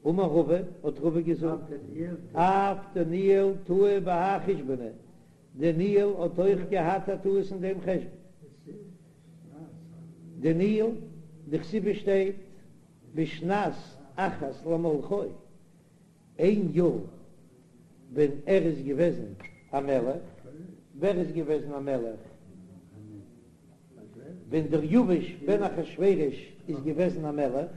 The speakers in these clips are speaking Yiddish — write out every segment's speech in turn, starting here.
אמר רבא, האט רבא געזאגט, אף דניאל טעה בהאי חושבנא, דניאל האט אויך געהאט א טעות אין דעם חשבון. דניאל, דכתיב שטייט בשנת אחת למלכו, איין יאר ווען ער איז געוועזן א מלך, ווער איז געוועזן א מלך? ווען דריוש בן אחשורוש איז געוועזן א מלך.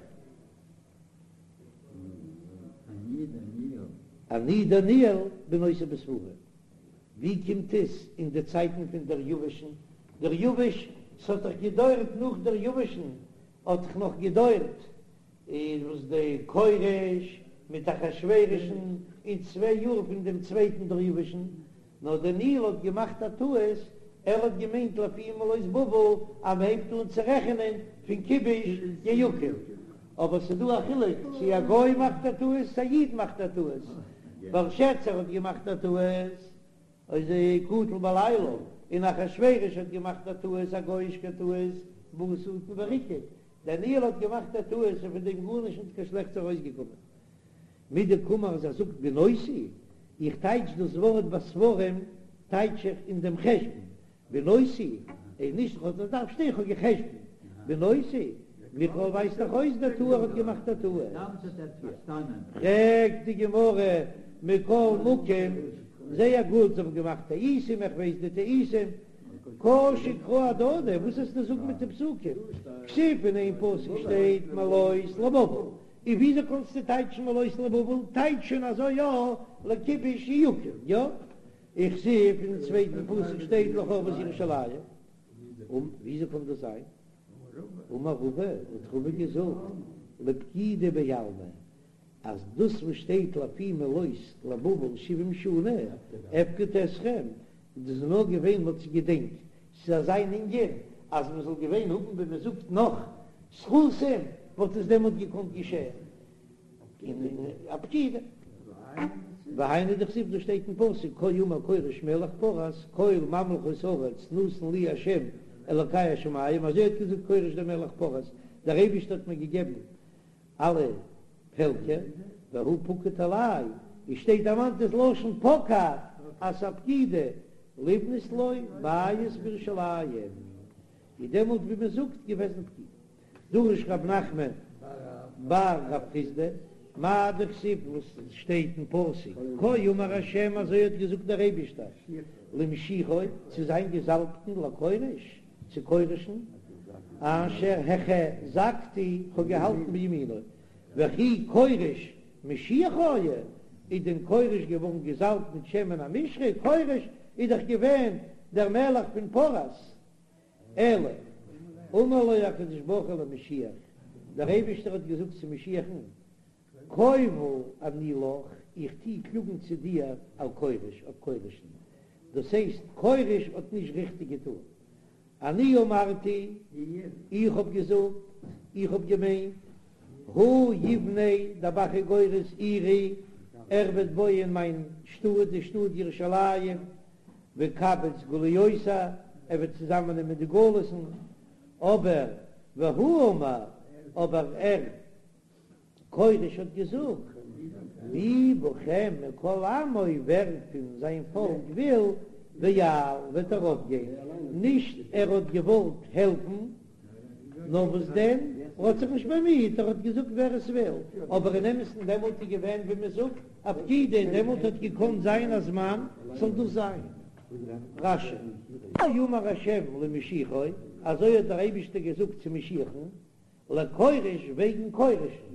אני דניאל בינותי בספרים. ווי קומט עס אין די צייטן פון דריוש'ן? דריוש, ס'האט דאך געדויערט נאך דריוש'ן האט דאך נאך געדויערט איז וואס די כורש מיט אחשורוש'ן און צוויי יאר פון דעם צווייטן דריוש'ן, נאר דניאל האט געמאכט א טעות, ער האט געמיינט לפי מלאות בבל אז מען הייבט אן צו רעכענען פון כיבוש יהויקים, אבער ס'איז דא א חילוק צו א גוי מאכט א טעות צו א איד מאכט א טעות, בלשאצר האט געמאכט א טעות איז קטל בלילה, און אחשורוש האט געמאכט א טעות א גויאישקע טעות בא שטן וריקד, דניאל האט געמאכט א טעות און פון דעם גארנישט נישט קיין שלעכטס ארויסגעקומען. מדקאמר אז ער זאגט בינותי, איך טייטש דאס ווארט בספרים טייטש איך אין דעם חשבון, בינותי איז נישט איך האב עס דארף שטיין איך האב גע'חשבונ'ט, בינותי מכלל ווייזט דאך אויס דטעה ער האט געמאכט א טעות. פרעגט די גמרא מכל מקום, זייער גוט זיי האבן געמאכט טעותים איך ווייס די טעותים, קשו קראי אהדדי, וואס וועסטו זאגן מיט די פסוקים? כתיב אין איין פסוק שטייט מלאות לבבל, און וויאזוי קענסטו טייטשן מלאות לבבל? טייטש שוין אזוי יא לכיבוש יהויקים, יא? וכתיב אין צווייטן פסוק שטייט לחרבות ירושלים, און וויאזוי קען דאס זיין? אמר רבא, האט רבא געזאגט, לפקידה בעלמא, אז דאס וואס שטייט לפי מלאות לבבל שבעים שנה אפקוד אתכם, דאס איז נאר געווען מ'האט זיך געדענקט, ס'איז אזא ענין אז מ'זאל געווען האבן ווי מ'זאגט נאך זכותים וואלט עס דעמאלט געקאנט געשען אין א פקידה. והיינו דכתיב דאס שטייט אין פסוק כה אמר כורש מלך פרס כל ממלכות הארץ נתן לי ה' אלוקי השמים, אזוי האט געזאגט כורש דער מלך פרס, דער אייבערשטער האט מיר געגעבן אלע פעלקער, והוא פקד עלי, עס שטייט דערמאנט דאס לשון פקד אז ס'איז א פקידה לבנות לו בית בירושלים, איז דעמאלט ווי מען זאגט געוועזן פקידה. דרש רב נחמן בר רב חסדא, מאי דכתיב וואס שטייט אין פסוק, כה אמר השם אזוי האט געזאגט דער אייבישטער למשיחו צו זיין געזאלבטן לכורש, צו כורש'ן, אשר החזקתי, כ'האב געהאלטן בימינו, וכי כורש משיח היה, איז דען כורש געווארן געזאלבט מיט שמן המשחה, כורש איז דאך געווען דער מלך פון פרס, אלא אמר לו הקדוש ברוך הוא למשיח, דער אייבישטער האט געזאגט צו משיח'ן, קובל אני לך, איך טוה קלאגן צו דיר על כורש, אויף כורש'ן, דאס הייסט כורש האט נישט ריכטיג געטאן, אני אמרתי, איך האב געזאגט, איך האב געמיינט, הוא יבנה, דער ב"ח איז גורס עירי, ער וועט בויען מיין שטאט, די שטאט ירושלים, ויקבץ גלויותי, ער וועט צוזאמענעמען די גלות'ן, אבער והוא אמר, אבער ער. כורש האט געזאגט, מי בכם מכל עמו, ווער פון זיין פאלק וויל, ויעל, וועט ארויפגיין, נישט ער האט געוואלט העלפן, נאר וואס דען, ער האט זיך נישט באמיהט, ער האט געזאגט ווער עס וויל, אבער אין אמת'ן דעמאלט איז געווען ווי מען זאגט א פקידה, דעמאלט האט געקאנט זיין א זמן זאל דאס זיין. רש"י. כה אמר השם למשיחו, אזוי האט דער אייבישטער געזאגט צו משיח'ן, לכורש וועגן כורש'ן.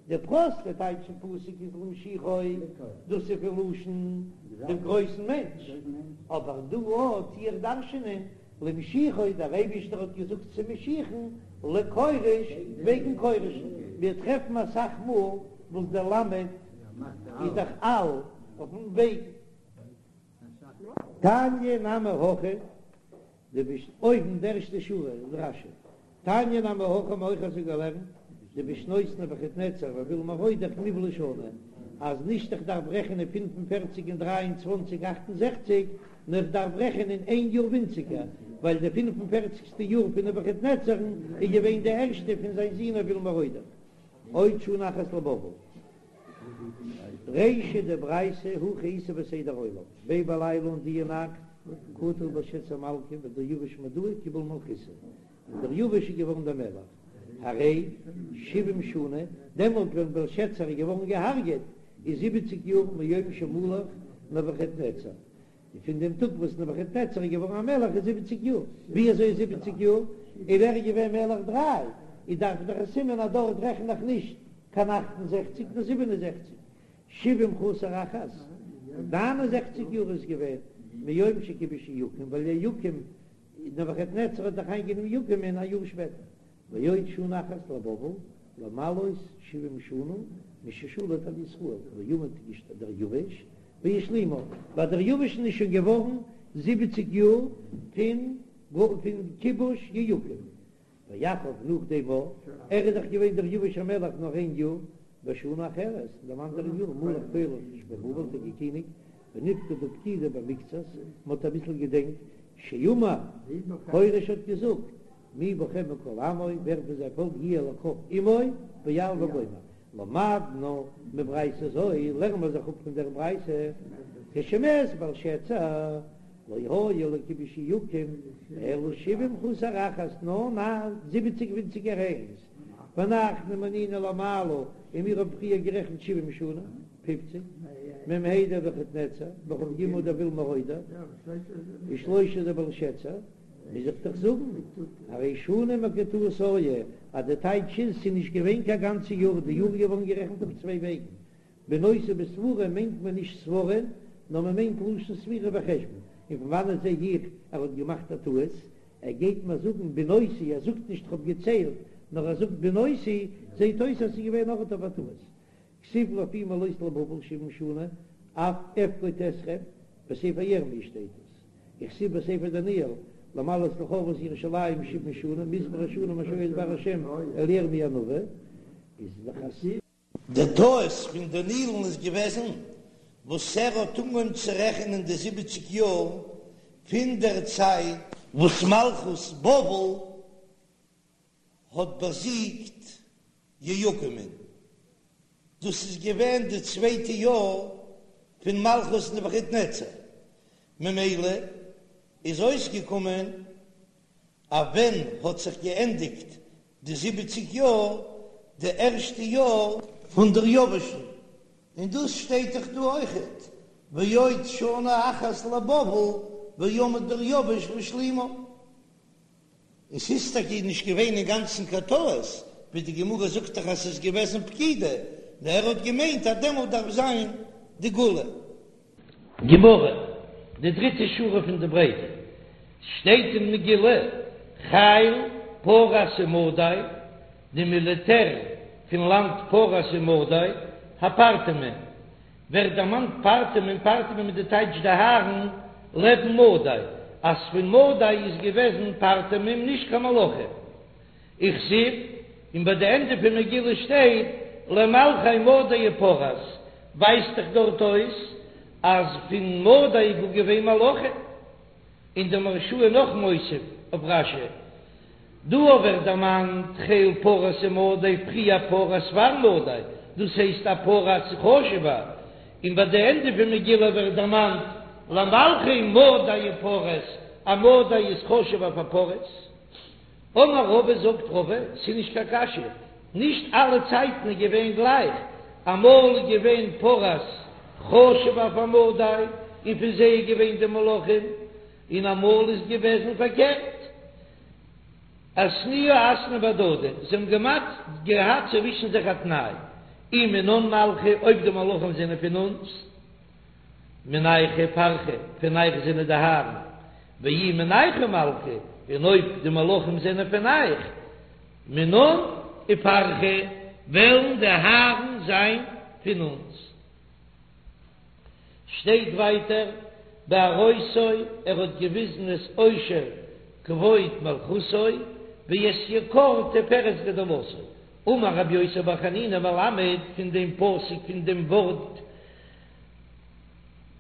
די פראסטע טייטש פון פסוק איז למשיחו, דאס איז פון לשון דעם גרויסן מענטש, אבער דא טו איך דרש'ענען למשיחו, דער אייבישטער האט געזאגט צו משיח'ן לכורש וועגן כורש'ן, מיר טרעפן אסאך מאל וואס דער למד איז דאך על אויפן וועגן. תניא נמי הכי, דו ביסט אויבן די ערשטע שורה אין רש"י. תניא נמי הכי האבן אויך אזוי געלערנט, דבשנות נבוכדנצר ואויל מרודך נבלעה שנה, אז נישט איך דארף רעכענען 45 און 23 68, נאר איך דארף רעכענען איין יאר ווינציגער, ווייל די פינף און פערציגסטע יאר פון נבוכדנצר'ן איז געווען די ערשטע פון זיין זון אויל מרודך. עוד שנה אחת לבבל. רישא דברייתא הכי איתא בסדר עולם, ביה בליליא אין דיע נאכט קטיל בלשצר מלכא ודריוש מדאי קיבל מלכותא, און דריוש איז געווארן דער מלך, הרי שבעים שנה, דעמאלט ווען בלשצר איז געווארן געהארגעט איז זיבעציג יאר מיום שמלך נבוכדנצר, און פון דעם טאג וואס נבוכדנצר איז געווארן א מלך איז זיבעציג יאר, ווי אזוי איז זיבעציג יאר? און ער איז געווען מלך דריי, איז דארף דאך א סימן אז דארט רעכן איך נישט קיין 68 נאר 67, שבעים חסר אחת, 69 יאר איז געווען מיום שכיבש יהויקים, ווייל יהויקים, נבוכדנצר האט דאך איינגענומען יהויקים'ען א יאר שפעטער. ועוד שנה אחת לבבל, למלאות שבעים שנה מששלט על ישראל, ועמד דריוש והשלימה, ביי דריוש'ן איז שוין געווארן זיבעציג יאר פון פון כיבוש יהויקים, ואחריו נאך דעם אויך, ער איז דאך געווען דריוש המלך נאר איין יאר, בשנה אחרת, אין דעם אנדערן יאר מלך כורש בבבל האט ער געקיניגט, ונפקדו פקידה במקצת, מען האט אביסל געדענקט, שאמר, כורש האט געזאגט, מי בכם מכל עמו, ווער פון זיין פאלק יהיה לכף עמו, ויעל וגומר. למדנו מברייתא זו, לערנען מיר זיך אפ פון דער ברייתא, כשמת בלשצר, לא היה לכיבוש יהויקים, אלא שבעים חסר אחת, נאר ניין, זיבעציג ווינציגער איינס, ואנחנו מנינו למעלה, און מיר האבן פריער גערעכנט שבעים שנה, פופציג, מ"ה דנבוכדנצר, וכ"ג דאויל מרודך, ושלשה דבלשצר. מוז איך דאך זאגן, הרי שנה מקוטעת היה, אז די טייטש איז ס'איז נישט געווען קיין גאנצע יאר, די יאר איז געווארן גערעכנט אויף צוויי וועגן, בינותי בספרים מיינט מען נישט ספרים, נאר מען מיינט לשון ספירה וחשבון, און פון וואנעט זע איך ער האט געמאכט א טעות, ער גייט מיר זאגן בינותי, ער זאגט נישט כ'האב געציילט, נאר ער זאגט בינותי, זעט אויס אז ס'איז געווען אויך אויף א טעות. כתיב לפי מלאות לבבל שבעים שנה, אף אפקוד אתכם, בספר ירמי' שטייט עס. וכתיב בספר דניאל, למלאות לחרבות ירושלים שבעים שנה, מספר השנים אשר היה דבר השם אל ירמי' הנביא, איז דאך א. די טעות פון דניאל'ן איז געוועזן וואס ער האט אנגעהויבן צו רעכענען די זיבעציג יאר פון דער צייט וואס מלכות בבל האט באזיגט יהויקים'ן, דאס איז געווען די צווייטע יאר פון מלכות נבוכדנצר, ממילא איז אויסגעקומען אז ווען האט זיך געענדיגט די זיבעציג יאר, די ערשטע יאר פון דריוש'ן, און דאס שטייט דאך דא אויכעט, ועוד שנה אחת לבבל ועמד דריוש והשלימה. און ס'איז טאקע נישט געווען אינגאנצן קיין טעות, ווי די גמרא זאגט דאך אז ס'איז געוועזן פקידה, נאר ער האט געמיינט אז דעמאלט דארף זיין די גאולה. גמרא, די דריטע שורה פון די ברייתא, שטייט אין מגילה, חיל פרס ומדי, די מיליטער פון לאנד פרס ומדי, הפרתמים, ווערט דערמאנט פרתמים, פרתמים איז די טייטש די הארן לעבן מדי, אז פון מדי איז געוועזן פרתמים נישט קיין מלכים. וכתיב, און ביי די ענדע פון מגילה שטייט למלכי מדי ופרס, ווייזט דאך דארט אויס אז פון מדי איז גאר געווען מלכים. און דער מהרש"א איז נאך מוסיף אויף רש"י, דא ווערט דערמאנט חיל פרס ומדי פריער פרס פאר מדי, דאס הייסט אז פרס איז חשוב'ער, און ביי די ענדע פון מגילה ווערט דערמאנט למלכי מדי ופרס, אז מדי איז חשוב'ער פאר פרס. אמר רבא זאגט רבא, ס'איז נישט קיין קשיא, נישט אלע צייטן איז געווען גלייך, אמאל איז געווען פרס חשוב'ער פאר מדי און פון זיי איז געווען די מלכים, און אמאל איז געוועזן פארקערט. אתנויי אתנו בהדדי, זיי האבן געמאכט געהאט צווישן זיך א תנאי, אי מינן מלכי, אויב די מלכים זענען פון אונז, מינייכו פרכי, פון אייך זענען די הארן, ואי מינייכו מלכי, און אויב די מלכים זענען פון אייך, מינן ופרכי, וועלן די הארן זיין פון אונז. שטייט ווייטער בהראותו, ער האט געוויזן את עושר כבוד מלכותו ואת יקר תפארת גדולתו, אמר רבי יוסי בר חנינא מלמד פון דעם פסוק פון דעם ווארט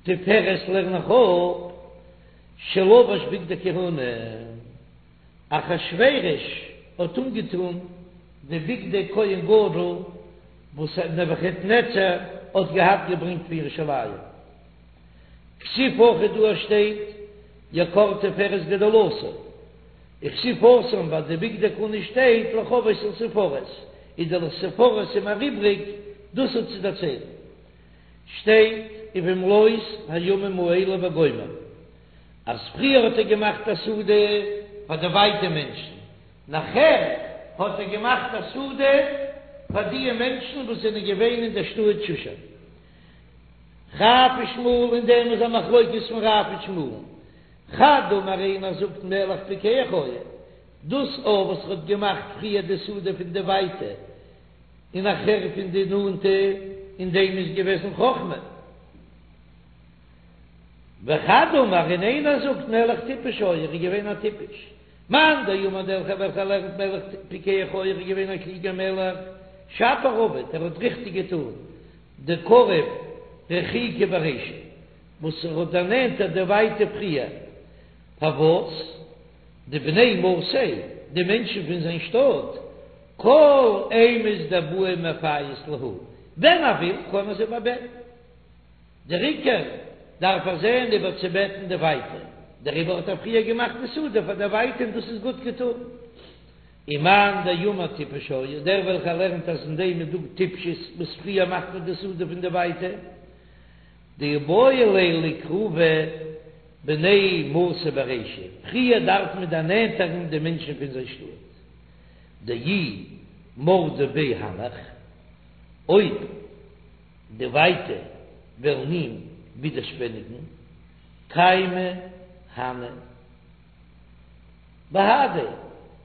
תפארת לערן איך אפ שלבש בגדי כהונה, אחשורוש האט אנגעטון די בגדי כהן גדול. וואס נבוכדנצר האט געהאט געברענגט פון ירושלים. כתיב הכא דא שטייט יקר תפארת גדולתו, וכתיב התם ביי די בגדי כהונה שטייט לכבוד ולתפארת, איז די לתפארת איז מיר איבריג דאס האט צו דערציילן. שטייט ובמלאות הימים האלה וגומר אז פריער האט ער געמאכט א סעודה פאר די ווייטע מענטשן, נאכער האט ער געמאכט א סעודה פאר דיע מענטשן וואס זענען געווען אין דער שטאט שושן. רב ושמואל אין דעם איז א מחלוקת פון רב און שמואל. חד אמר איינער זאגט מלך פיקח היה, דאס א וואס ער האט געמאכט פריער די סעודה פון די ווייטע און נאכער פון די נאנטע, אין דעם איז געוועזן חכמה. וחד אמר און איינער זאגט מלך טיפש היה, ער איז געווען א טיפש. מאן דאמר דער וועלכער לערנט מלך פיקח היה, ער איז געווען א קלוגער מלך, שפיר עבד, ער האט ריכטיג געטאן, דקריב רחיקי ברישא, וואס ער האט דערנענטערט די ווייטע פריער, פארוואס דבני מאתיה, די מענטשן פון זיין שטאט, כל אימת דבעי מפייס להו, ווען ער וויל קען ער זיי איבערבעטן. דער עיקר דארף ער זען איבערצובעטן די ווייטע, דעריבער האט ער פריער געמאכט די סעודה פאר די ווייטע און דאס איז גוט געטאן. ומאן דאמר טיפש היה, דער וועלכער לערנט אז אין דעם איז דא טיפשות וואס פריער מאכט מען די סעודה פון די ווייטע, דאיבעי ליה לקרובי בני מאתיה ברישא, פריער דארף מען דערנענטערן די מענטשן פון זיין שטאט, דאי מרדו ביה הנך, אויב די ווייטע וועלן אים ווידערשפעניגן, קיימי הני בהדיה,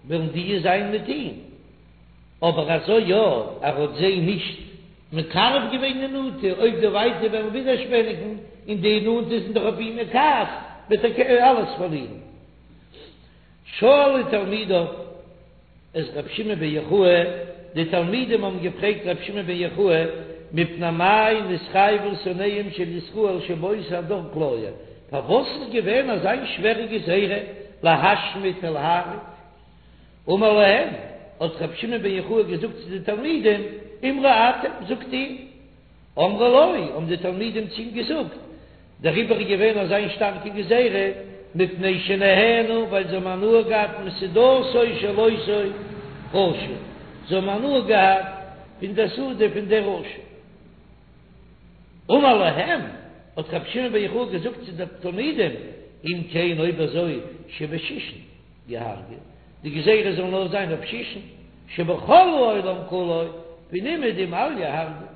וועלן די זיין מיט אים, אבער אזוי יא, ער האט זיי נישט מקרב געווען די נאנטע, אויב די ווייטע וועלן ווידערשפעניגן און די נאנטע זענען דאך אויף אים אין כעס, וועט ער אלעס פארלירן. שאלו תלמידיו את רבי שמעון בן יוחאי, די תלמידים האבן געפרעגט רבי שמעון בן יוחאי, מפני מה נתחייבו שונאיהם של ישראל שבאותו הדור כליה, פארוואס איז געווען אזא שווערע גזירה להשמיד ולהרוג? אמר להם, האט רבי שמעון בן יוחאי געזאגט צו די תלמידים, אמרו אתם, זאגט איר. אמרו לו, האבן די תלמידים צו אים געזאגט, דעריבער איז געווען אזא שטארקע גזירה, מפני שנהנו, ווייל זיי האבן הנאה געהאט מסעודתו של אותו רשע, זיי האבן הנאה געהאט פון דער סעודה פון דער רשע. אמר להם, האט רבי שמעון בן יוחאי געזאגט צו די תלמידים, אם כן אויב אזוי שבשישין יהרגו, די גזירה זאל נאר זיין אויף שישן, שבכל העולם כולו, פון אומעדום אל יהרגו.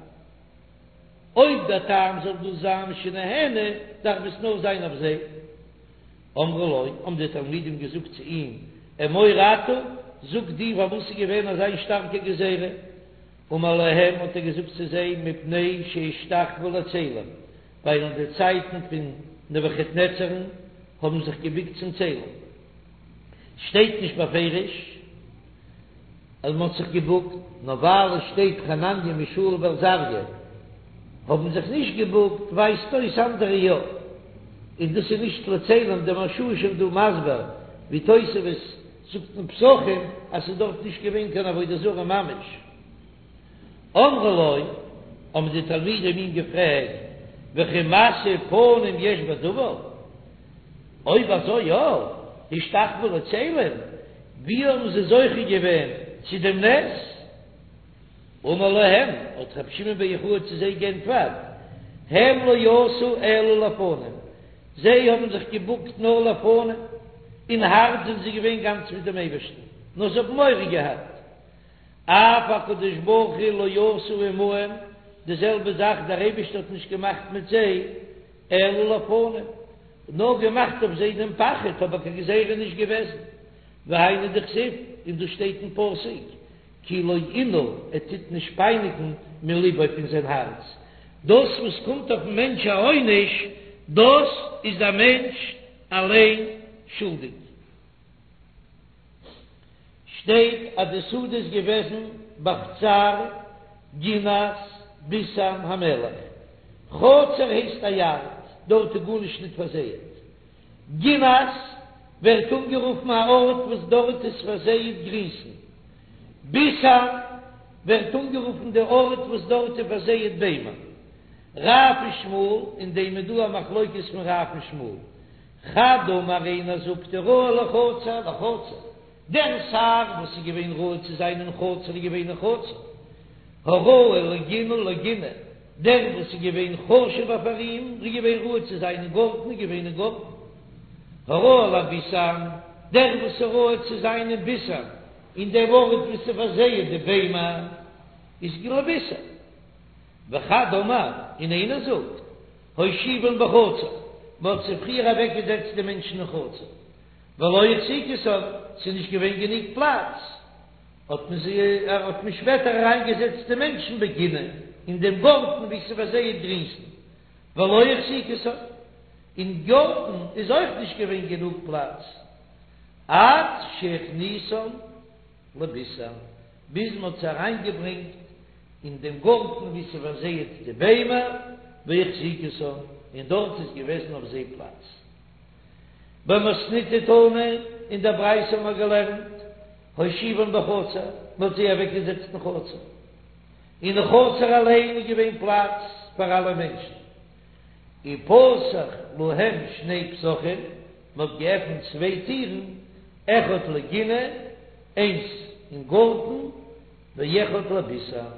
אויב דער טעם זאל דאס זיין שנהנו, דארף עס נאר זיין אויף זיי. אמרו לו, האבן די תלמידים געזאגט צו אים, אמור אתה, זאג דו פארוואס איז געווען אזא שטארקע גזירה? אמר להם, האט ער געזאגט צו זיי, מפני שהשתחוו לצלם, ווייל אין די צייטן פון נבוכדנצר'ן האבן זיך געבוקט צום צלם. שטייט נישט בפירוש אז מען האט זיך געבוקט, נאר ווייל עס שטייט חנניה מישאל ועזריה האבן זיך נישט געבוקט, ווייזט אויס אנדערע יא, און דאס איז נישט לצלם, דער מהרש"א איז שוין דא מסביר ווי תוספות זאגט אין פסחים אז ס'איז דארט נישט געווען קיין עבודה זרה ממש. אמרו לו, האבן די תלמידים אים געפרעגט, וכי משוא פנים יש בדבר? אויב אזוי יא, השתחוו לצלם, ווי האבן זיי זוכה געווען צו דעם נס? אמר להם, האט רבי שמעון בן יוחאי צו זיי גענטפערט, הם לא עשו אלא לפנים, זיי האבן זיך געבוקט נאר לפנים, אין הארץ זענען זיי געווען גאנץ מיט דעם אייבערשטן, נאר זיי האבן מורא געהאט, אף הקדוש ברוך הוא לא עשה עמהם, די זעלבע זאך דער אייבערשטער האט נישט געמאכט מיט זיי, אלא לפנים, נאר געמאכט אויף זיי דעם פחד, אבער קיין גזירה נישט געוועזן, והיינו דכתיב, און דאס שטייט אין פסוק, כי לא ענה, ער טוט נישט פייניגן מלבו פון זיין הארץ, דאס וואס קומט אויפן מענטש א עונש, דאס איז דער מענטש אליין שולדיג. שטייט אז די סעודה איז געוועזן בחצר גינת ביתן המלך, חצר הייסט א יארד, דארט איז גארנישט ניט פארזייעט, גינת ווערט אנגערופן א ארט וואס דארט איז פארזייעט גרינסן, ביתן. ווערט אנגערופן די ארט וואס דארט איז פארזייעט ביימער. רב ושמואל, אין דעם איז דא א מחלוקת פון רב און שמואל. חד אמר איינער זאגט הראוי לחצר לחצר, דער שר וואס איז געווען ראוי צו זיין אין חצר איז געווען אין חצר, הראוי לגינה לגינה, דער וואס איז געווען חשוב'ער פאר אים איז געווען ראוי צו זיין אין גארטן איז געווען אין גארטן, הראוי לביתן, דער וואס איז ראוי צו זיין אין ביתן, אין דעם ארט וואו ס'איז פארזייעט די ביימער, איז לביתן. וחד אמר, און איינער זאגט, הושיבן בחצר, מען האט זיי פריער אוועקגעזעצט די מענטשן אין חצר, ולא החזיקותן, ס'איז נישט געווען גענוג פלאץ, האט מען זיי, האט מען שפעטער אריינגעזעצט די מענטשן בגינה, אין דעם גארטן וואו ס'איז פארזייעט גרינסן, ולא החזיקותן, אין גארטן איז אויך נישט געווען גענוג פלאץ, עד שהכניסן לביתן, ביז מען האט זיי אריינגעברענגט אין דעם גארטן וואו ס'פארזייעט די ביימער, והחזיקותן, און דארט איז געוועזן אויף זיי פלאץ. במתניתא תנא, אין דער ברייתא האבן מיר געלערנט, הושיבן בחצר, מען האט זיי אוועקגעזעצט אין חצר. אין חצר אליין איז געווען פלאץ פאר אלע מענטשן. ופתח להם שני פתחים, מען האט געעפנט צוויי טירן, אחד לגינה, איינס אין גארטן, ואחד לביתן,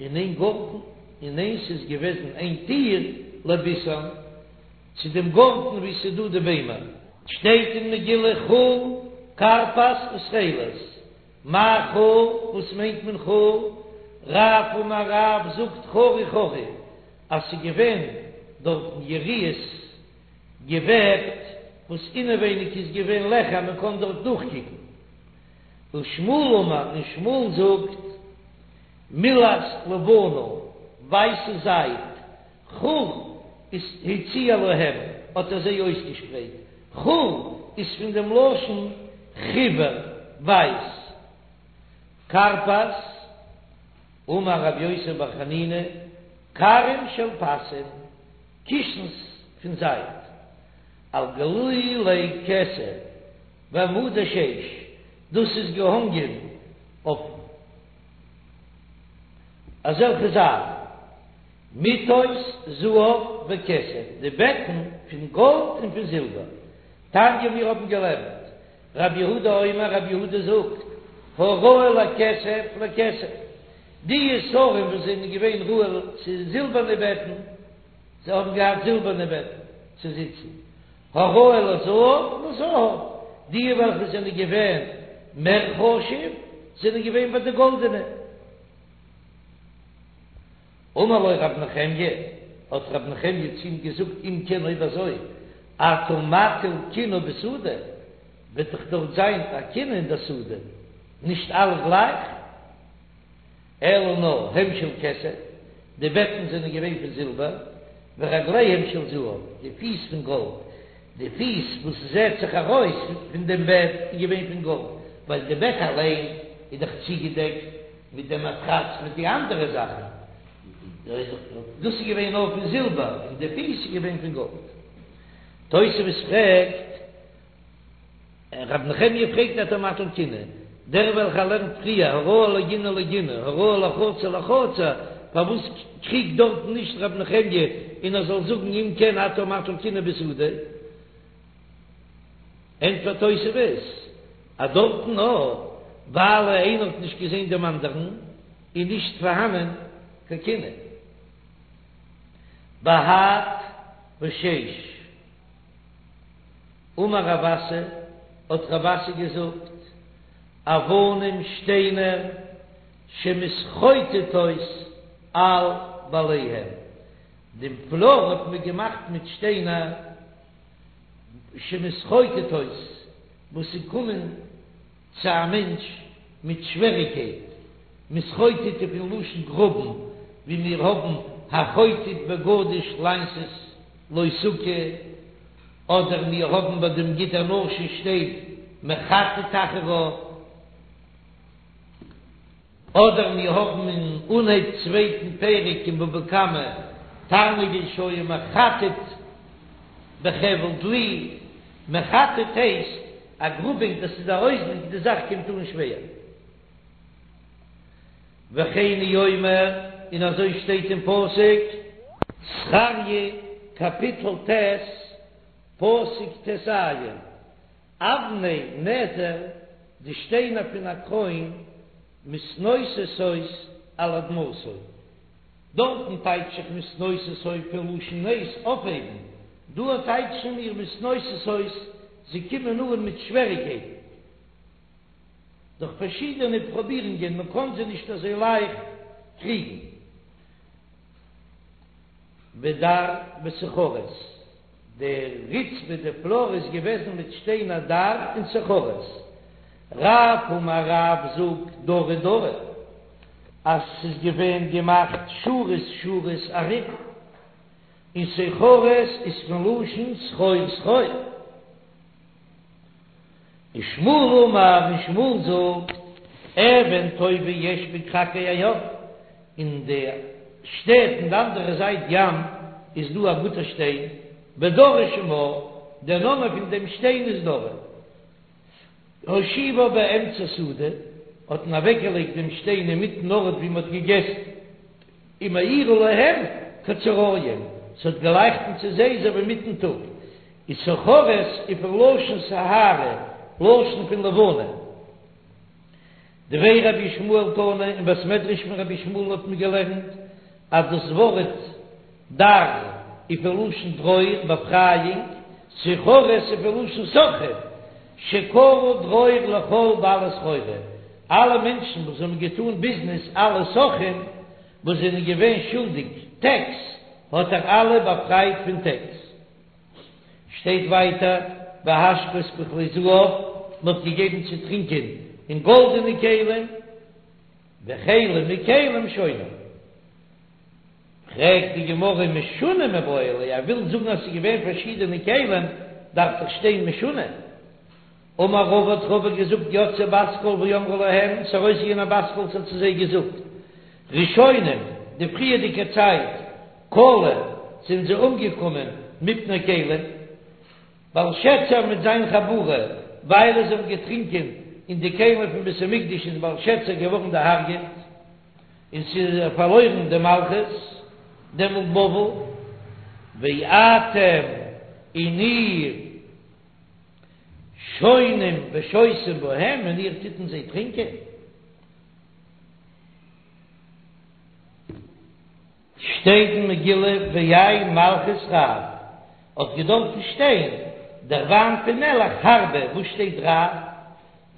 און איין גארטן, און איינס איז געוועזן איין טיר לביתן, צו דעם גארטן וואו ס'איז דא די ביימער. שטייט אין מגילה חור כרפס ותכלת, מאי חור, וואס מיינט מען חור? רב אמר רב זאגט חרי חרי אז ס'איז געווען דארטן יריעות געוועבט וואס אינעווייניג איז געווען לעכער מען קען דארט דורכקוקן. ושמואל אמר און שמואל זאגט מילת לבנה ווייסע זייד חור איז הציע להם האט ער זיי אויסגעשפרייט חור איז פון דעם לשון חיוור ווייס כרפס אמר רבי יוסי בר חנינא כרים של פסים קישנס פון זייד על גלולי כסף ועמודי שש, דאס איז געהאנגען אויף אזעלכע זיילן, מטות זהב וכסף, די בעטן פון גאלד און פון זילבער. תניא מיר האבן געלערנט, רבי יהודה אומר, רבי יהודה זאגט, הראוי לכסף לכסף, די שרים וואס זענען געווען ראוי צו זילבערנע בעטן, זיי האבן געהאט זילבערנע בעטן צו זיצן, הראוי לזהב לזהב, די וועלכע זענען געווען מער חשוב זענען געווען ביי די גאלדענע. אמר לו רב נחמיה, האט רב נחמיה צו אים געזאגט, אם כן אויב אזוי, אתה מטיל קנאה בשדה, וועט דאך דארט זיין א קנאה אין די שדה, נישט אלע גלייך. אלא נאר הם של כסף, די בעטן זענען געווען פון זילבער, ורגליהם של זהב, די פיס פון גאלד, די פיס וואס זעט זיך ארויס פון דעם בעט איז געווען פון גאלד, ווייל די בעט אליין איז דאך צוגעדעקט מיט דעם מאטראץ מיט די אנדערע זאכן, דאס איז געווען נאר פון זילבער, און די פיס איז געווען פון גאלד. תוספות פרעגט. רב נחמיה פרעגט אתה מטיל קנאה, דער וועלכער לערנט פריער הראוי לגינה לגינה הראוי לחצר לחצר, פארוואס קריגט דארטן נישט רב נחמיה און ער זאל זאגן אם כן אתה מטיל קנאה בשדה? ענטפערט תוספות אז דארטן נאר ווייל איינער האט נישט געזען דעם אנדערן איז נישט פארהאנען קיין קנאה. בהד ושש. אמר רב אסי, האט רב אסי געזאגט, אבנים שטיינער שמתחוטטות על בעליהם, דעם פלאר האט מען געמאכט מיט שטיינער שמתחוטטות וואס ס'קומען צו א מענטש מיט שוועריקייט, מתחוטט איז פון לשון גראבן, ווי מיר האבן החוטט בגדיש לעשות לו סוכה, אדער מיר האבן ביי דעם גיד הנשה שטייט מחטט אחריו, אדער מיר האבן אין אנהייב צווייטן פרק אין בבא קמא תרנגול שהיה מחטט בחבל דלי, מחטט הייסט א גראבונג דאס איז א אויסדרוק די זאך קומט אן שווער. וכן הוא אומר, און אזוי שטייט אין פסוק. זכריה קאפיטל ט', פסוק טז, אבני נזר, די שטיינער פון א קרוין, מתנוססות על אדמתו. דארטן טייטש איך מתנוססות פון לשון נס אויפהייבן, דא טייטשן מיר מתנוססות זיי קומען אן מיט שוועריקייטן דורך פארשידענע פרובירונגען, מען קען זיי נישט אזוי לייכט קריגן. ודר וסוחרת, די רצפה די פלאר איז געוועזן מיט שטיינער דר און סוחרת. רב אמר רב זאגט דרי דרי אז ס'איז געווען געמאכט שורות שורות ארום, און סוחרת איז פון לשון סחור סחור. ושמואל אמר, און שמואל זאגט, אבן טובה יש בכרכי הים, אין די שטעט אין די אנדערע זייט ים איז דא א גוטע שטיין, ודרי שמה, דער נאמען פון דעם שטיין איז דרי. הושיבה באמצע סעודה, האט מען אוועקגעלייגט דעם שטיין אינמיטן ארט ווי מען האט געגעסן. ומאירה להם כצהרים, ס'האט געלייכטן צו זיי אזוי ווי מיטן טאג, איז סוחרת איז פון לשון סיהרא, לשון פון לבנה. דבי רבי ישמעאל תנא, אין בית מדרש פון רבי ישמעאל האט מען געלערנט אז דאס ווארט דר איז פון לשון דרור, באפרייאונג, סוחרת איז פון לשון סוחרים, שקרא דרור לכל בעלי סחורה, אלע מענטשן וואס האבן געטאן ביזנעס, אלע סוחרים וואס זענען געווען שולדיג טעקס, האט ער אלע באפרייט פון טעקס. שטייט ווייטער, והשקות בכלי זהב, מען האט געגעבן צו טרינקען אין גאלדענע כלים, וכלים מכלים שונים. פרעגט די גמרא משונה מיבעי ליה, ער וויל זאגן אז ס'איז געווען פארשידענע כלים, דארף דאך שטיין משונה. אמר רבא האט רבא געזאגט יצאה בת קול ואמרה להם, ס'איז ארויסגעגאנגען א בת קול ס'האט צו זיי געזאגט, ראשונים, די פריערדיגע צייט, כלו, זענען זיי אומגעקומען מפני כלים, בלשצר מיט זיין חבורה, ווייל זיי האבן געטרינקען אין די כלים פון בית המקדש איז בלשצר געווארן דערהארגעט. און ס'איז פארלוירן די מלכות, דעמאלט בבל, ואתם און איר שונים ושותים בהם, און איר טוט אין זיי טרינקען. שטייט אין מגילה ויין מלכות רב, האט געדארפן שטיין דער וויין פון מלך הרבה, וואס שטייט רב?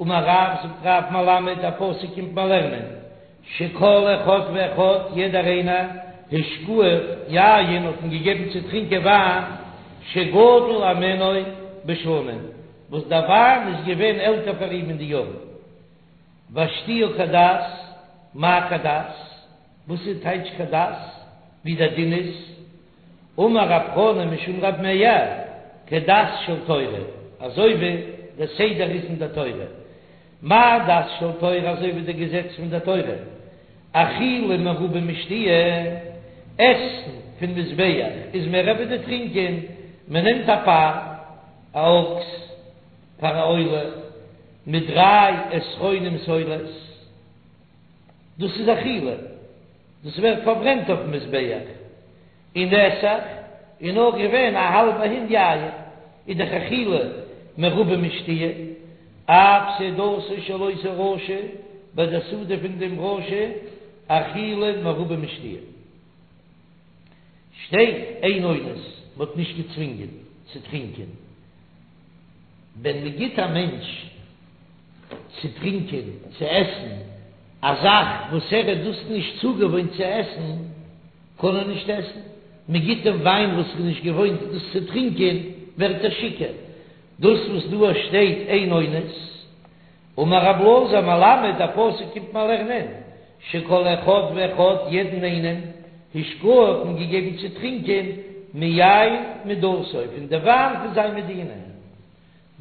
אמר רב, זאגט רב מלמד, א פסוק קומט מיר לערנען, שכל אחד ואחד, יעדער איינער, השקוהו יין, האט מען געגעבן צו טרינקען וויין, שגדול הימנו בשנים, וואס דער וויין איז געווען עלטער פאר אים אין די יארן. והשתיה כדת, מאי כדת? וואס איז טייטש כדת? ווי דער דין איז? אמר רב חנא משום רב מאיר, כדת של תורה, אזוי ווי דער סדר איז אין דער תורה. מה דת של תורה אזוי ווי דער געזעץ פון דער תורה, אכילה מרובה משתיה, עסן פון מזבח איז מער ווי די טרינקען, מען נעמט א פר, א אקס, פאר א עולה, מיט דריי עשרונים סולת, דאס איז אכילה, דאס ווערט פארברענט אויפן מזבח, און נסך איז נאר געווען א האלבע הין יין, איז דאך אכילה מרובה משתיה, אף סעודתו של אותו רשע, ביי די סעודה פון דעם רשע, אכילה מרובה משתיה. שטייט אין אונס, מען האט נישט געצווינגען צו טרינקען. ווען מען גיט א מענטש צו טרינקען, צו עסן, א זאך וואס ער איז דאס נישט צוגעוואוינט צו עסן, קען ער נישט עסן. מען גיט אים וויין וואס ער איז נישט געוואוינט דאס צו טרינקען, ווערט ער שיכור. דאס וואס דא שטייט אין אונס, אמר רב אלעזר מלמד, א פסוק קומט מען לערנען, שכל אחד ואחד, יעדן איינעם, השקוהו האט מען געגעבן צו טרינקען מיין מדינתו, פון די וויין פון זיין מדינה.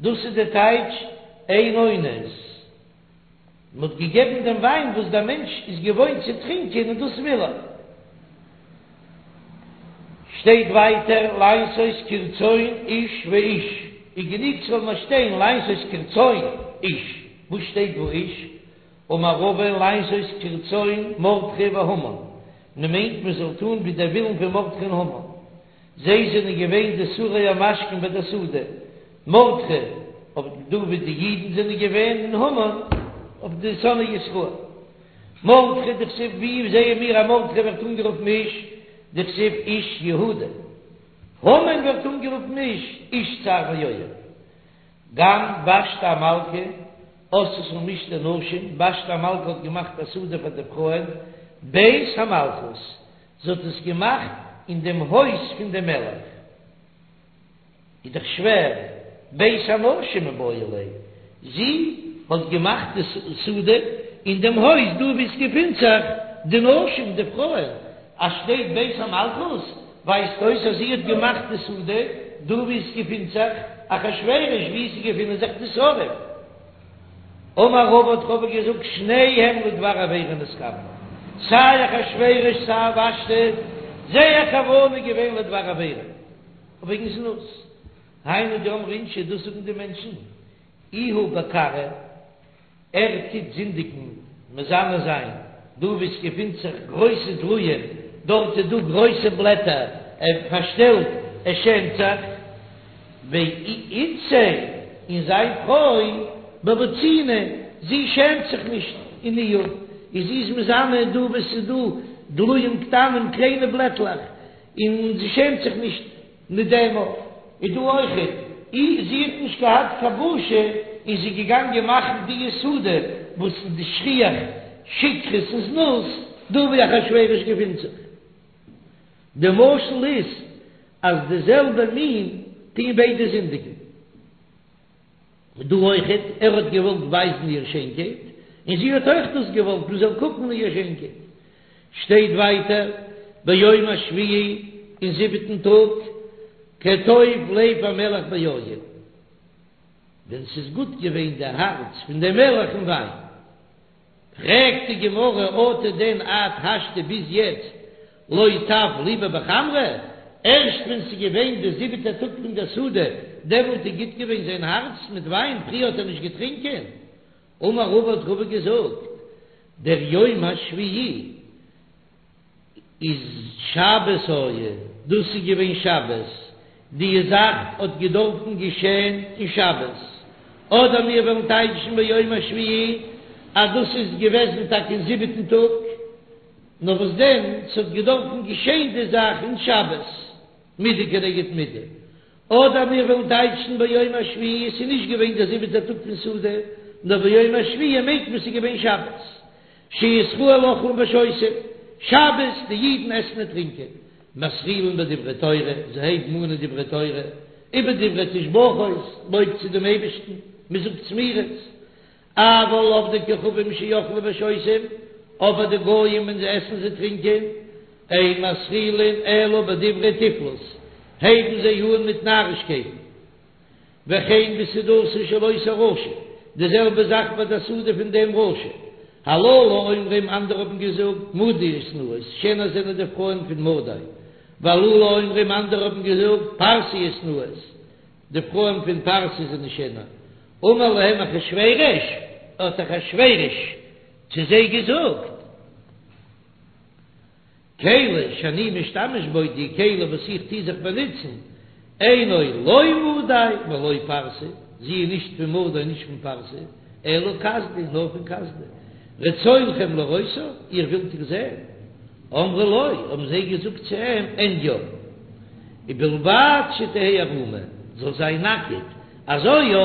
דאס איז די טייטש אין אונס, מען האט געגעבן דעם וויין וואס דער מענטש איז געוואוינט צו טרינקען און דאס וויל ער. שטייט ווייטער לעשות כרצון איש ואיש, איז גענוג ס'זאל נאר שטיין לעשות כרצון איש, וואס שטייט ואיש? אמר רבא לעשות כרצון מרדכי והמן, מען מיינט מען זאל טון ווי דער ווילן פון מרדכי און המן, זיי זענען געווען די שרי המשקים ביי דער סעודה, מרדכי אויף דא ווי די אידן זענען געווען און המן אויף די שונאי ישראל. מרדכי דכתיב ווי זעען מיר אז מרדכי ווערט אנגערופן איש דכתיב איש יהודה, המן ווערט אנגערופן איש איש צר ואויב. גם ושתי המלכה עשתה משתה נשים, ושתי המלכה האט געמאכט א סעודה פאר די פרויען בית המלכות, זי האט עס געמאכט אין דעם הויז פון דעם מלך. איז דאך שווער, בית הנשים מיבעי ליה, זי האט געמאכט די סעודה אין דעם הויז דא וואו עס געפינט זיך די נשים, די פרויען, אז שטייט בית המלכות ווייזט אויס אז זי האט געמאכט די סעודה דא וואו עס געפינט זיך אחשורוש, וואו עס געפינען זיך די שרים. אמר רבא האט רבא געזאגט שניהם לדבר עבירה נתכוונו, סיי אחשורוש סיי ושתי, זייער כוונה איז געווען לדבר עבירה. וועגן זנות, היינו דאמרי אינשי, דאס זאגן די מענטשן, איהו בכרעא, ער טוט זינדיגן, מזנה זיין, דא וואו עס געפינט זיך גרויסע דלועים, דארט איז דא גרויסע בלעטער, ער פארשטעלט, ער שעמט זיך, ואיתתיה, און זיין פרוי, בבוציני, זי שעמט זיך נישט אין ניאוף, און זי איז מזנה דא וואו עס איז דא דלועים קטנים, קליינע בלעטלעך, און זי שעמט זיך נישט מיט דעם אויך, איז דא אויכעט, אי זי האט נישט געהאט קיין בושה און זי איז געגאנגען מאכן די סעודה וואס איז די שכיח שכרות און זנות דא ווי אחשורוש געפינט זיך. די משל איז אז די זעלבע מין טוהן ביידע זינדיגן. דא אויכעט, ער האט געוואלט ווייזן איר שיינקייט, און זי האט אויך דאס געוואלט מען זאל קוקן אין איר שיינקייט. שטייט ווייטער, ביום השביעי, אין זיבעטן טאג, כטוב לב המלך ביין, ווען ס'איז גוט געווען די הארץ פון דעם מלך אין וויין. פרעגט די גמרא אטו דען עד השתא ביז יעצט לא טב ליביה בחמרא, ערשט ווען ס'איז געווען די זיבעטע טאג פון דער סעודה דעמאלט איז גוט געווען זיין הארץ מיט וויין, פריער האט ער נישט געטרינקען? אמר רבא האט רבא געזאגט דער יום השביעי איז שבת היה, דאס איז געווען שבת, די זאך האט געדארפן געשען אין שבת, אדער מיר וועלן טייטשן ביום השביעי אז דאס איז געוועזן טאקע אין זיבעטן טאג, נאר וואס דען ס'האט געדארפן געשען די זאך אין שבת, מידה כנגד מידה, אדער מיר וועלן טייטשן ביום השביעי עס איז נישט געווען דער זיבעטער טאג פון סעודה, נאר ביום השביעי מיינט מען ס'איז געווען שבת, שישראל אוכלים ושותים, שבת די אידן עסן און טרינקען, מתחילין בדברי תורה, זיי הייבן אן אין דברי תורה, ובדברי תשבחות, לויב צו דעם אייבערשטן, מען זאגט זמירות, אבל עובדי כוכבים שאוכלים ושותים, אבער די גויים ווען זיי עסן זיי טרינקען, אין מתחילין אלא בדברי תיפלות, הייבן זיי אן מיט נארישקייטן. וכן בסעודתו של אותו רשע, די זעלבע זאך ביי די סעודה פון דעם רשע. הללו אומרים, אנדערע האבן געזאגט, מדיות נאות, שענער זענען די פרויען פון מדי. והללו אומרים, אנדערע האבן געזאגט, פרסיות נאות, די פרויען פון פרסי זענען שענער. אמר להם אחשורוש, האט אחשורוש צו זיי געזאגט. כלי שאני משתמש בו, די כלי וואס איך טוה זיך באנוצן, אינו לא מדי ולא פרסי, זי איז נישט פון מדי נישט פון פרסי, אלא כשדי, נאר פון כשדי. רצונכם לראותה, איר ווילט איר זען? אמרו לו, האבן זיי געזאגט צו אים, אין יא. ובלבד שתהא ערומה, זאל זיין נאקעט, אזוי יא,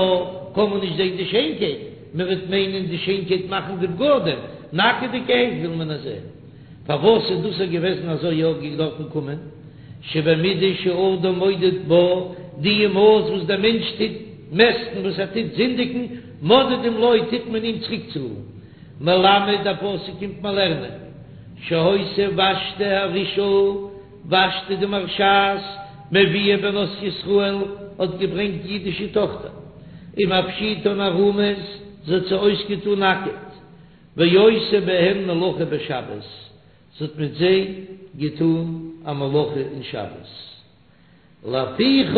קען מען נישט זען די שיינקייט, מען וועט מיינען די שיינקייט מאכן די בגדים, נאקעדיגערהייט וויל מען עס זען. פארוואס איז דאס געוועזן אזוי יא געדארפן קומען? שבמידה שאדם מודד בה, די מאס וואס דער מענטש טוט מעסטן וואס ער טוט זינדיגן, מודדים לו טוט מען אים צוריקצאלן. מלמד דער פסוק קומט מיר לערנען, שהיתה ושתי הרשעה, ושתי די מרשעת, מביאה בנות ישראל, האט געברענגט אידישע טאכטער, ומפשיטן ערומות, זי האט זיי אויסגעטאן נאקעט, ועושה בהן מלאכה בשבת, זי האט מיט זיי געטאן א מלאכה אין שבת, לפיכך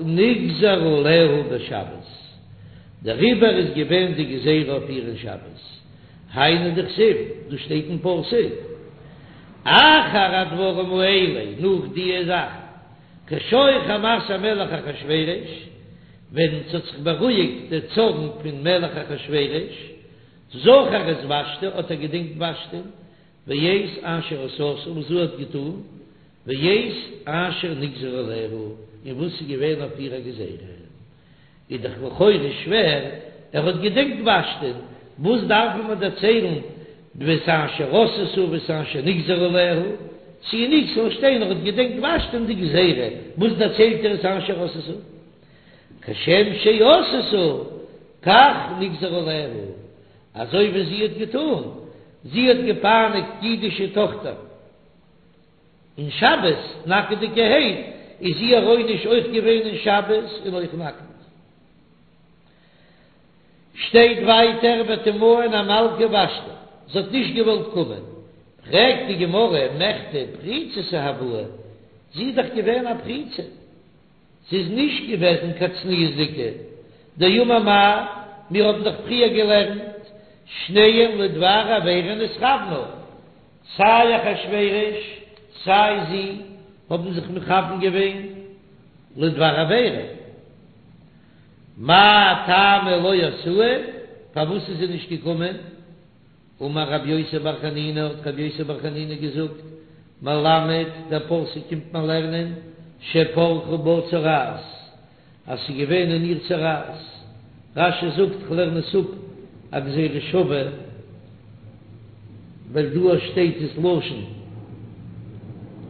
נגזר עליה בשבת, דעריבער איז געווען די גזירה אויף איר אין שבת. היינו דכתיב, דאס שטייט אין פסוק, אחר הדברים האלה, נאך דיע זאכן, כשור חמת המלך אחשורוש, ווען ס'האט זיך בארואיגט דער צארן פון מלך אחשורוש, זכר את ושתי, האט ער געדענקט ושתי'ן, ואת אשר עשתה, וואס זי האט געטאן, ואת אשר נגזר עליה, און וואס איז געווען אויף איר א גזירה. איז דאך לכאורה שווער, ער האט געדענקט ושתי'ן, וואס דארף מען דערציילן ואת אשר עשתה ואת אשר נגזר עליה, צו נישט זאל שטיין ער האט געדענקט ושתי'ן די גזירה, וואס דערציילט ער את אשר עשתה? כשם שעשתה כך נגזר עליה, אזוי ווי זי האט געטאן, זי האט געפייניגט אידישע טאכטער. אין שבת נאקעדיגערהייט איז איר עונש אויך געווען אין שבת און אויך נאקעט. שטייט ווייטער ותמאן המלכה ושתי, זי האט נישט געוואלט קומען, פרעגט די גמרא מכדי פריצתא הואי, זי איז דאך געווען א פריצה, זי איז נישט געוועזן קיין צניעות'דיגע, דאמר מר, מיר האבן דאך פריער געלערנט, שניהם לדבר עבירה נתכוונו, סיי אחשורוש סיי זי האבן זיך מכוון געווען לדבר עבירה, מאי טעמא לא אתאי, פארוואס איז זי נישט געקומען? אמר רבי יוסי בר חנינא, האט רבי יוסי בר חנינא געזאגט, מלמד, דער פסוק קומט מיר לערנען, שפרחה בה צרעת, אז ס'איז געווען אין איר צרעת. רש"י זאגט, כ'לערן עס אפ א גזירה שווה, ווייל דא שטייט עס לשון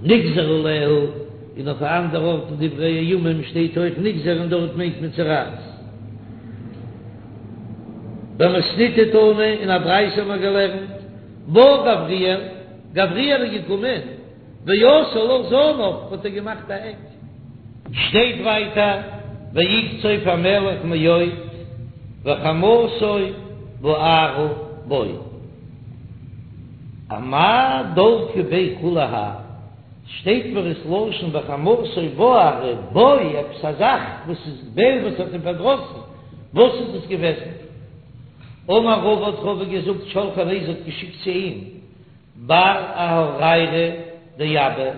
נגזר עליה, און אויף א אנדער ארט אין דברי הימים שטייט אויך נגזר און דארט מיינט מען צרעת. במתניתא תנא, אין א ברייתא האט מען געלערנט, בא גבריאל, גבריאל איז געקומען, ועשה לה זנב, האט ער געמאכט א עק. שטייט ווייטער ויקצוף המלך מאוד וחמתו בערה בו. אמאי דלקה ביה כולי האי, שטייט מיר עס לשון וחמתו בערה בו, עפעס א זאך וואס איז געווען וואס האט אים פארדראסן, וואס איז דאס געוועזן? אמר רבא האט רבא געזאגט שלחה ליה זי האט געשיקט צו אים בר אהורייריה דאבא,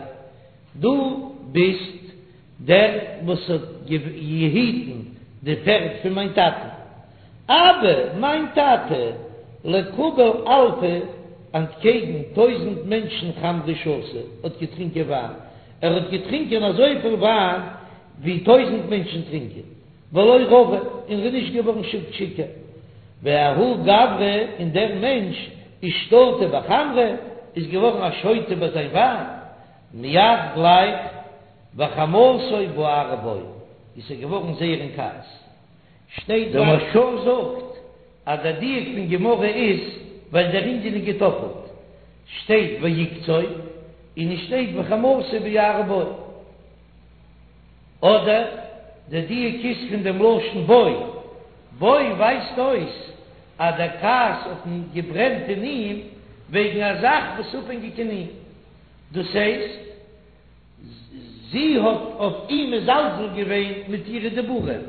דו ביסט דער וואס האט געהיטן די פערד פון מיין טאטן. אבא, מיין טאטע, לקבל אלפא, אנטקעגן טויזענט מענטשן חמרא שתה, האט געטרינקען וויין, ער האט געטרינקען אזויפיל וויין ווי טויזענט מענטשן טרינקען. ולא רוי, און ער איז נישט געווארן שיכור. וההוא גברא, און דער מענטש, אישתטה בחמרא, איז געווארן א שוטה ביי זיין וויין, מיד גלייך, וחמתו בערה בו, איז ער געווארן זייער אין כעס. שטייט דער מהרש"א זאגט אז דער דיוק פון גמרא איז ווייל דער ענין איז געטאפלט, שטייט ויקצוף און עס שטייט וחמתו בערה בו. אדער די דיוק איז פון דעם לשון בו, בו ווייזט אויס אז דער כעס האט געברענט אין אים וועגן א זאך וואס איז אפהענגיק אין אים, דאס הייסט זי האט אויף אים מזלזל געווען מיט אירע דיבורים,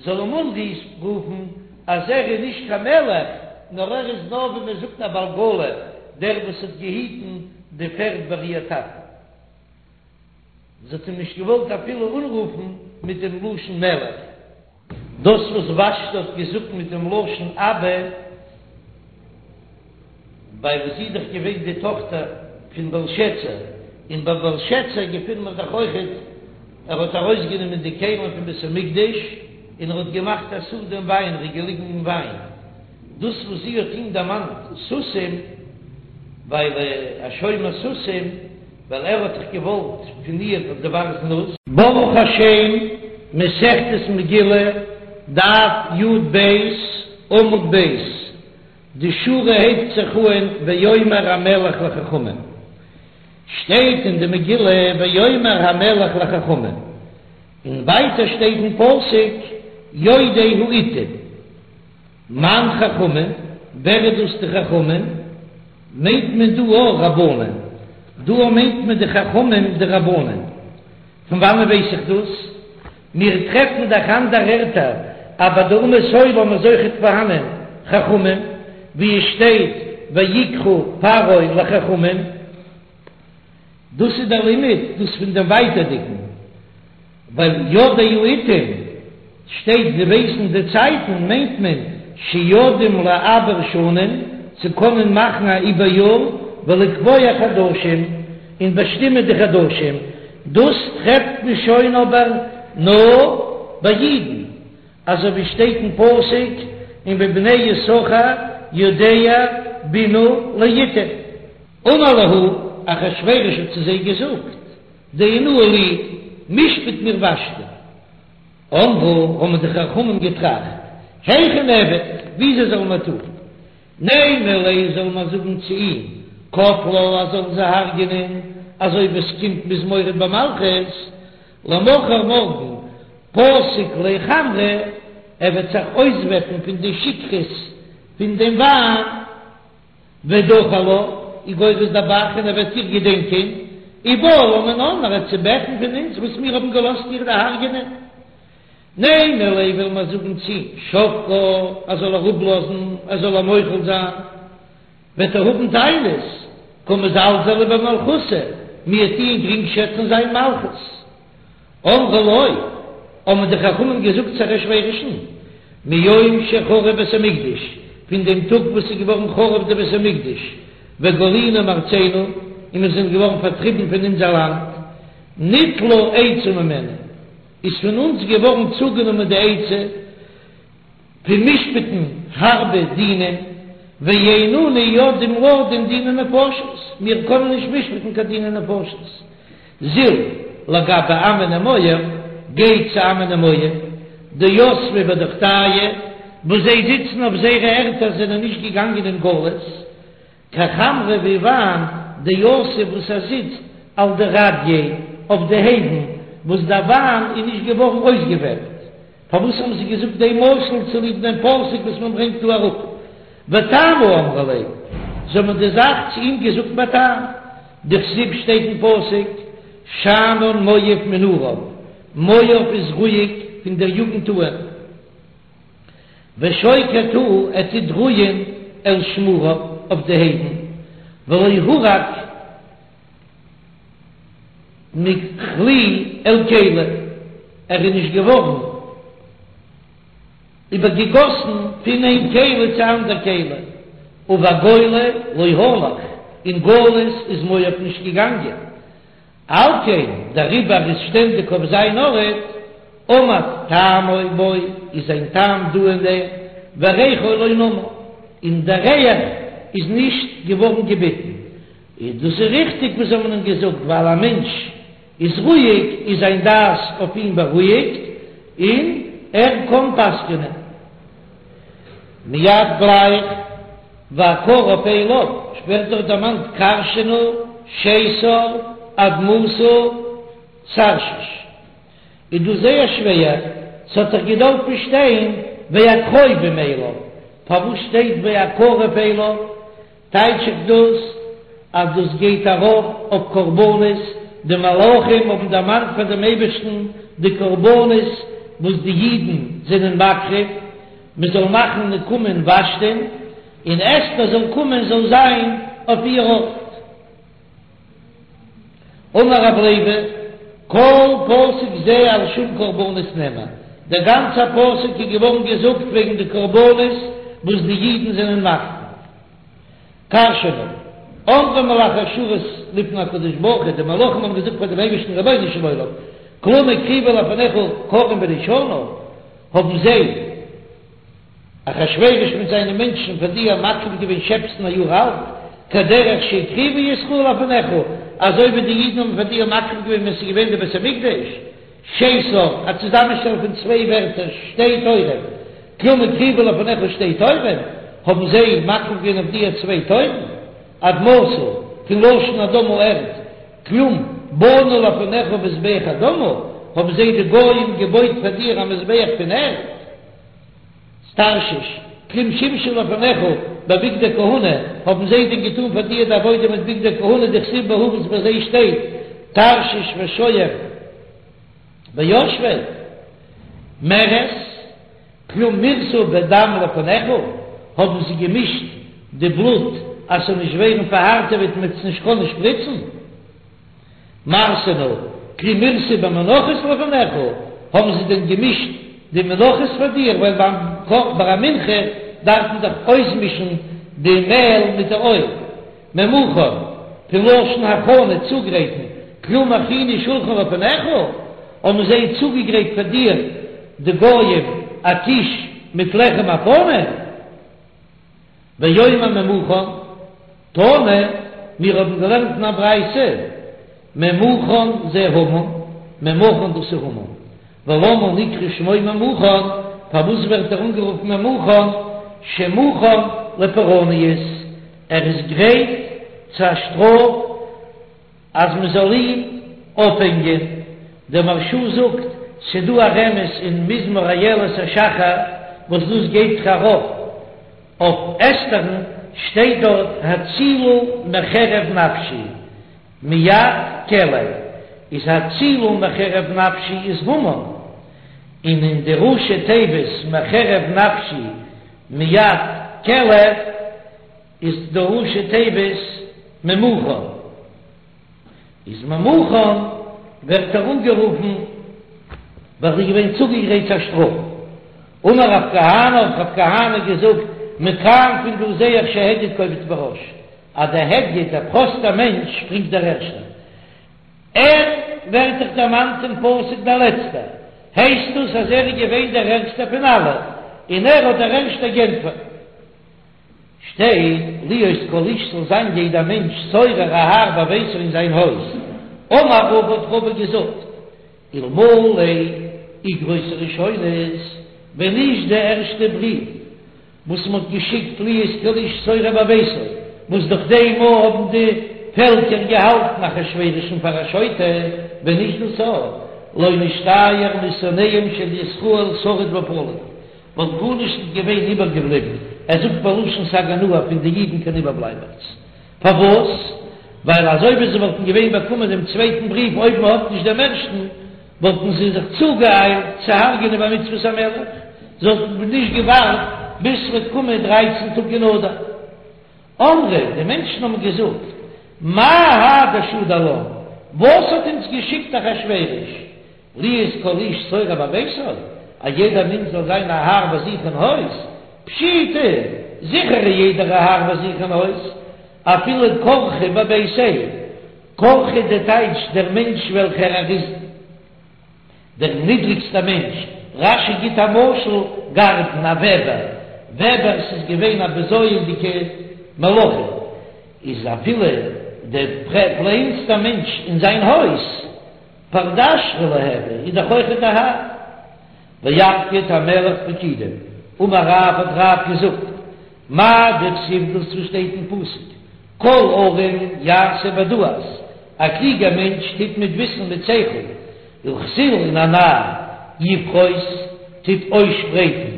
זאל אים אנרופן אז ער איז נישט קיין מלך, נאר ער איז נאר ווי מען זאגט א בעל עגלה, דער וואס האט געהיטן די פערד ביי איר טאטן. זי האט אים נישט געוואלט אפילו אנרופן מיט דעם לשון מלך. דאס וואס ושתי האט געזאגט מיט דעם לשון אבא, ווייל זי איז דאך געווען די טאכטער פון בלשאצר, און ביי בלשאצר געפינט מען דאך אויכעט, ער האט ארויסגענומען די כלים פון בית המקדש און ער האט געמאכט א סעודה אין וויין, ער איז געליגן אין וויין. דאס וואס זי האט אים דערמאנט סוסים, ווייל א שומר סוסים, ווייל ער האט דאך געוואלט פון איר דבר זנות. ברוך השם, מסכת מגילה, דף י"ב, עמוד ב', די שורה הייבט זיך אהן ויאמר המלך לחכמים, שטייט אין די מגילה ויאמר המלך לחכמים, און ווייטער שטייט אין פסוק יודעי העתים. מאן חכמים, ווער איז דאס די חכמים? מיינט מען דא אויך רבנן? דא מיינט מען די חכמים די רבנן. פון וואנען ווייס איך דאס? מיר טרעפן דאך אנדערע ערטער אז ביי די אומות העולם איז אויכעט פארהאנען חכמים. ווי עס שטייט ויקרא פרעה לחכמים, דאס איז דער לימוד דאס פון דעם ווייטערדיגן, ווייל יודעי עתים שטייט זיי ווייסן די צייטן מיינט מען שיודעים לעבר שנים צו קענען מאכן א איבער-יאר ולקבוע חדשים און באשטימען די חדשים, דאס טרעפט מען שוין אבער נאר ביי אידן, אזוי ווי שטייט אין פסוק ומבני יששכר יודעי בינה לעתים. אמר להו, אחשורוש האט צו זיי געזאגט, דיינוה לי, משפט מיר ושתי. אמרו, האבן די חכמים געטראכט, היכי נעביד, וויאזוי זאלן מיר טון? נימא ליה זאל מען זאגן צו אים, קטלה ער זאל זי הרג'ענען, אזוי ווי עס קומט מ'איז מורד במלכות, למחר מארגן פסיק ליה חמרא, ער וועט זיך אויסוועפן פון די שכרות פון דעם וויין. ודכיר לה, איז גורס דער ב"ח און ער וועט איר געדענקען, ובעי לה מינן ער וועט זי בעטן פון אונז וואס מיר האבן געלאזט איר דערהרג'ענען. נימא ליה וויל מען זאגן צו אים שבקה ער זאל איר אפלאזן ער זאל איר מוחל זיין, וועט ער האבן טענות, קא מזלזלי במלכותא, מיר טוען גרינגשעצן זיין מלכות. אמרו לו, האבן די חכמים געזאגט צו אחשורוש'ן, מיום שחרב בית המקדש, פון דעם טאג וואס איז געווארן חרוב די בית המקדש, וגלינו מארצינו, און מיר זענען געווארן פארטריבן פון אונזער לאנד, ניטלה עצה ממנו, איז פון אונז געווארן צוגענומען די עצה, פון משפט'ן הארבע דינים, ואין אנו יודעים לדון דיני נפשות, מיר קענען נישט משפט'ן קיין דיני נפשות. זיל לגבי עמון ומואב, גיי צו עמון און מואב, דיתבי בדוכתייהו, וואס זיי זיצן אויף זייערע ערטער זענען נישט געגאנגען אין גלות, כחמרא ווי וויין דיתיב וואס ער זיצט על דרדיא אויף די הייוון וואס דער וויין איז נישט געווארן אויסגעוועפט. פארוואס האבן זיי געזאגט דעם משל? צוליב דעם פסוק וואס מען ברענגט דא אראפ, וטעמא אמרו ליה, זיי האבן די זאך צו אים געזאגט בטעם, דכתיב שטייט אין פסוק, שאנן מואב מנעוריו, מואב איז רואיג פון דער יוגנט אהן. ושוקט הוא ער טוט רוען על שמריו אויף די הייוון, ולא הורק מכלי אל כלי, ער איז נישט געווארן איבערגעגאסן פון איין כלי צו אנדער כלי, ובגולה לא הלך, אין גלות איז מואב נישט געגאנגען, על כן, דעריבער איז שטענדיג אויף זיין ארט, עמד טעמו בו, איז זיין טעם דא אין דעם, וריחו לא נמר, און דער ריח איז נישט געווארן געביטן. איז דאס איז ריכטיג וואס זיי האבן אים געזאגט, ווייל א מענטש איז רואיג, איז זיין דעת אויף אים בארואיגט, און ער קען פסק'נען. מיד גלייך והקרוב אליו ווערט דאך דערמאנט כרשנא, שתר, אדמתא, תרשיש. איז דא זייער שווער, ס'האט דאך געדארפט שטיין והקרובים אליו, פארוואס שטייט והקרוב אליו? טייטש איך דאס אז דאס גייט ארויף אויף קרבנות, די מלאכים האבן דערמאנט פאר דעם אייבערשטן די קרבנות וואס די אידן זענען מקריב, מען זאל מאכן נקמה אין ושתי'ן, און אסתר זאל קומען זאל זיין אויף איר ארט. אמר רב לוי, כל פסוק זה על שום קרבנות נאמר, דער גאנצער פסוק איז געווארן געזאגט וועגן די קרבנות וואס די אידן זענען מקריב. כרשנא, אמרו מלאכי השרת לפני הקדוש ברוך הוא, די מלאכים האבן געזאגט פאר דעם אייבערשטן רבונו של עולם, כלום הקריבו לפניך כרים בני שנה, האבן זיי, אחשורוש מיט זיינע מענטשן פאר דיר מקריב געווען שעפסן א יאר אלט, כדרך שהקריבו ישראל לפניך, אזוי ווי די אידן האבן פאר דיר מקריב געווען ווען ס'איז געווען די בית המקדש, שתר, א צוזאמענשטעל פון צוויי ווערטער, שתי תורים, כלום הקריבו לפניך שתי תורים, האבן זיי מקריב געווען אויף דיר צוויי תורים, אדמתא, פון לשון אדמה ערד, כלום בנו לפניך מזבח אדמה, האבן זיי די גויים געבויט פאר דיר א מזבח פון ערד. תרשיש, כלום שמשו לפניך בבגדי כהונה, האבן זיי דען געטאן פאר דיר די עבודה מיט בגדי כהונה דכתיב בהו וואס ביי זיי שטייט תרשיש ושוהם וישבי מרס, כלום מירסו בדם לפניך, האבן זיי געמישט. די בלוט אז ס'זאל נישט ווערן פארהארטעוועט מ'וועט עס נישט קענען שפריצן? מרסנא, כלום מירסו במנחות לפניך, האבן זיי דען געמישט די מנחות פאר דיר, ווייל ביים ביי א מנחה דארף מען דאך אויסמישן די מעל מיט די אויל. ממוכן, פון לשון הכנה, צוגרייטן, כלום הכינו שולחן לפניך, האבן זיי צוגעגרייט פאר דיר, די גויים, א טיש מיט לחם הפנים? ואומר ממוכן, תנא, מיר האבן געלערנט אין א ברייתא, ממוכן זה המן, ממוכן דאס איז המן, ולמה נקרא שמו ממוכן, פארוואס ווערט ער אנגערופן ממוכן, שמוכן לפורענות, ער איז גרייט צו א שטראף אז מען זאל אים אויפהענגען, דער מהרש"א זאגט, ס'דא א רמז אין מזמור איילת השחר וואס דאס גייט זיך ארויף אויף אסתר'ן, שטייט דארט הצילה מחרב נפשי מיד כלב, איז הצילה מחרב נפשי איז המן, און אין די ראשי תיבות מחרב נפשי מיד כלב איז די ראשי תיבות ממוכן, איז ממוכן ווערט ער אנגערופן ווייל ער איז געווען צוגעגרייט צו א שטראף. אמר רב כהנא האט רב כהנא געזאגט מכאן פון דא זעה איך שהדיוט קופץ בראש אז דער הדיוט דער פראסטער מענטש שפרינגט דער ערשטער. ער ווערט דאך דערמאנט אין פסוק דער לעצטער, הייסט דאס אז ער איז געווען דער ערגסטער פון אלע און ער האט דער ערשטער גענטפערט. שטייט, להיות כל איש זאל זיין יעדער מענטש שורר א האר בביתו אין זיין הויז. אמר רבא האט רבא געזאגט, אלמלא איגרות הראשונות, ווען נישט די ערשטע בריוו וואס מען האט געשיקט להיות כל איש שורר בביתו, וואס דורך דעם מאל האבן די פעלקער געהאלטן אחשורוש'ן פאר א שוטה, ווען נישט דאס לא נשתייר משונאיהם של ישראל שריד ופליט, וואלט גארנישט נישט געווען איבערגעבליבן, ער זאגט בלשון סגי נהור פון די אידן קיין איבערבלייבעכץ. פארוואס? ווייל אזוי ווי זיי וואלטן געווען באקומען דעם צווייטן בריוו אויב מען האט נישט דעם ערשטן, וואלטן זיי זיך צוגעאיילט צו הרג'ענען במצוות המלך, זיי וואלטן נישט געווארט ביז ס'וועט קומען דרייצן טאג אין אדר. אמרי, די מענטשן האבן געזאגט, מאי האי דשדר לן, וואס האט אונז געשיקט אחשורוש, להיות כל איש שורר בביתו, א יעדער מענטש זאל זיין א האר ביי זיך אין הויז, פשיטא, זיכער איז יעדער א האר ביי זיך אין הויז, אפילו כרכא בביתיה, כרכא די טייטש דער מענטש וועלכער ער איז דער נידריגסטער מענטש, רש"י גיט א משל, גרדן, א וועבער, וועבערס איז געווען א בזיון'דיגע מלאכה, איז אפילו דער קלענסטער מענטש אין זיין הויז, פרדשרא לא הוי, איז דאך אויכעט א האר. ויפקיד המלך פקידים, אמר רב האט רב געזאגט, מאי דכתיב דאס וואס שטייט אין פסוק, כל ערום יעשה בדעת, א קלוגער מענטש טוט מיט וויסן מיט שכל, וכסיל און א נאר, יפרוס, טוט אויסשפרייטן,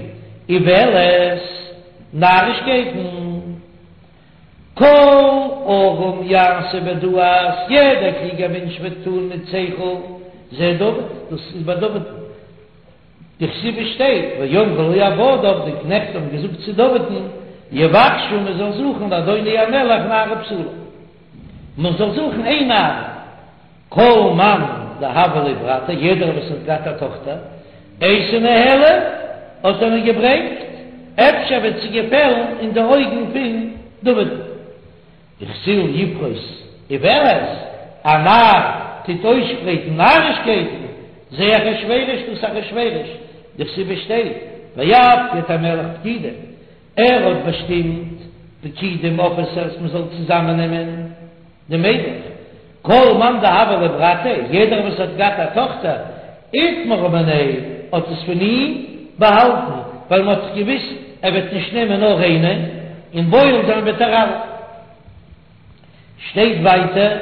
אולת, נארישקייטן. כל ערום יעשה בדעת, יעדער קלוגער מענטש וועט טון מיט שכל, זה דוד, דאס איז ביי דוד'ן. דכתיב עס שטייט, ויאמרו לו עבדיו, די קנעכט האבן געזאגט צו דוד'ן, יבקשו מען זאל זוכן לאדוני המלך נערה בתולה, מען זאל זוכן איין נערה. כל מאן דהוה ליה ברתא, יעדער וואס האט געהאט א טאכטער, אייתי ניהלה, האט ער איר געברענגט, אפשר וועט זי געפעלן אין די אויגן פון דוד'ן. וכסיל יפרוס אולת, א נאר טוט אויסשפרייטן נארישקייטן, זה אחשורוש דאס אחשורוש, דכתיב עס שטייט, ויפקד המלך פקידים, ער האט באשטימט פקידים אפיסערס מען זאל צוזאמען נעמען די מיידלעך, כל מאן דהוה ליה ברתא, יעדער וואס האט געהאט א טאכטער, איטמרה מיניה, האט עס פון אים באהאלטן, ווייל מען האט דאך געוויסט ער וועט נישט נעמען נאר איינע, און בועל זיין וועט ער אלע. שטייט ווייטער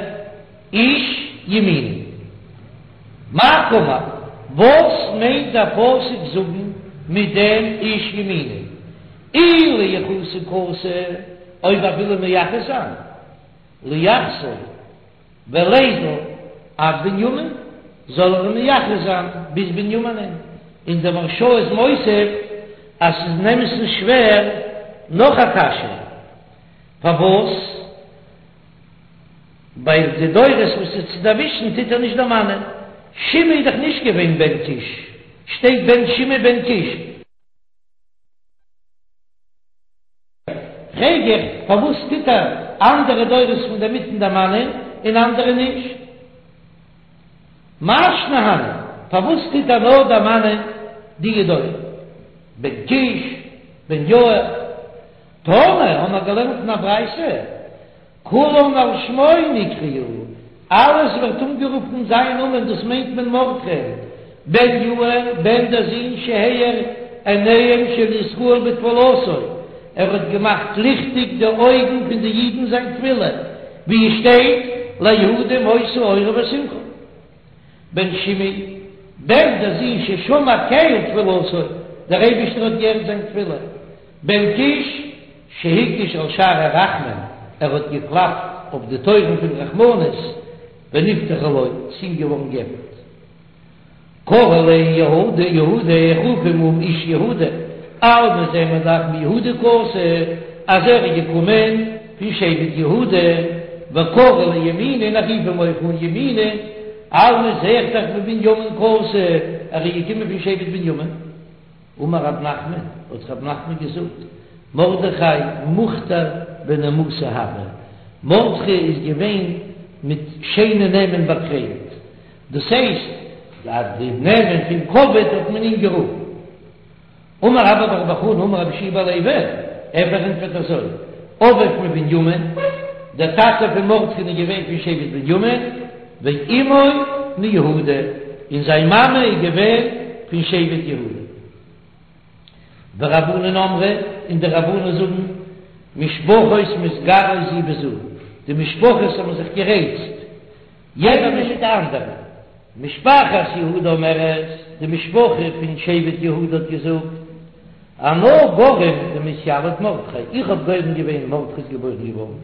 איש ימיני. מאי קאמר, וואס מיינט דער פסוק זאגן מיט דעם איש ימיני? אי לייחוסי קאתי, אויב ער וויל אים מייחס זיין, לייחסיה וליזיל עד בנימין, זאל ער אים מייחס זיין ביז בנימינען, און דער מהרש"א איז מוסיף אז ס'איז אין אמת'ן שווער נאך א קשיא. פארוואס? ווייל די דורות וואס איז צו דערווישן טוט ער נישט דערמאנען. שמעי איז דאך נישט געווען בן קיש, שטייט בן שמעי בן קיש. פרעג איך, פארוואס טוט ער אנדערע דורות פון דער מיטן דערמאנען און אנדערע נישט? מאי שנא הני, פארוואס טוט ער נאר דערמאנען די דורות? בן קיש, בן יאיר. תנא, האבן מיר געלערנט אין א ברייתא, כולן על שמו נקראו, אלעס ווערט אנגערופן זיין נאמען, דאס מיינט מען מרדכי'ן, בן יאיר, בן דער זון שהאיר עיניהם של ישראל בתפלתו, ער האט געמאכט ליכטיג די אויגן פון די אידן זיין תפילה, ווי עס שטייט ליהודים היתה אורה ושמחה. בן שמעי, בן דער זון ששמע קל תפילתו, דער אייבערשטער האט געהערט זיין תפילה. בן קיש, שהקיש על שערי רחמים, ער האט געקלאפט אויף די טויערן פון רחמנות, ונפתחו לו, ס'איז אים געווארן געעפנט. קרי ליה יהודה, יהודה, איך רוף אים אן איש יהודה, אלמא זעען מיר דאך מיהודה קאתי, אז ער איז געקומען פון שבט יהודה, וקרי ליה ימיני, און איך רוף אים אויך אן ימיני, אלמא זע איך דאך מבנימין קאתי, ער איז געקומען פון שבט בנימין. אמר רב נחמן, האט רב נחמן געזאגט, מרדכי מוכתר בנימוסא הוה, מרדכי איז געווען מיט שיינע נעמען באקרוינט, דאס הייסט אז די נעמען פון כבוד האט מען אים גערופן. אמר רבה בר בר חנה אמר רבי יהושע בן לוי, ער פארענטפערט אזוי, אביו מבנימין, דער טאטע פון מרדכי'ן איז געווען פון שבט בנימין, ואמו מיהודה, און זיין מאמע איז געווען פון שבט יהודה. ורבנן אמרי, און די רבנן זאגן, משפחות מתגרות זו בזו, די משפחות האבן זיך גערייצט, יעדער מיט די אנדערע. משפחת יהודה אומרת, די משפחה פון שבט יהודה האט געזאגט, אנא גרים דמתיליד מרדכי, איך האב גורם געווען מרדכי איז געבוירן געווארן,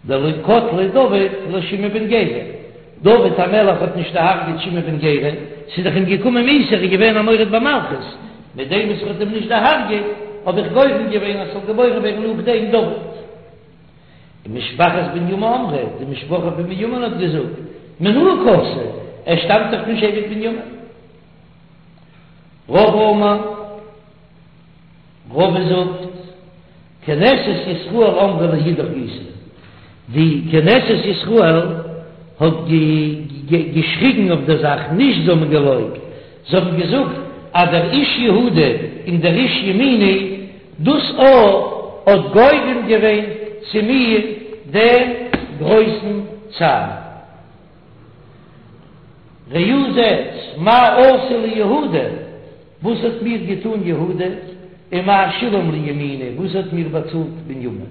דלא קטליה דוד לשמעי בן גרא, דוד המלך האט נישט דערהרגעט שמעי בן גרא, ס'איז דאך אים געקומען מיתה, ער איז געווען א מורד במלכות, מיט דעם וואס ער האט אים נישט דערהרגעט, האב איך גורם געווען אז ס'זאל געבוירן ווערן נאכדעם דוד. ומשפחת בנימין אמרה, די משפחה פון בנימין האט געזאגט, מינאי קאתי, ער שטאמט דאך פון שבט בנימין. רבא אמר. רבא זאגט, כנסת ישראל אמרה לאידך גיסא, די כנסת ישראל האט געשריגן אויף דער זאך, נישט זיי האבן געלויבט, זיי האבן געזאגט אז דער איש יהודה און דער איש ימיני, דאס א האט גורם געווען צו מיר דעם גרויסן צער. ראו זעטס, מה עשה לי יהודה, וואס האט מיר געטאן יהודה, און מה שילם לי ימיני, וואס האט מיר באצאלט בנימין,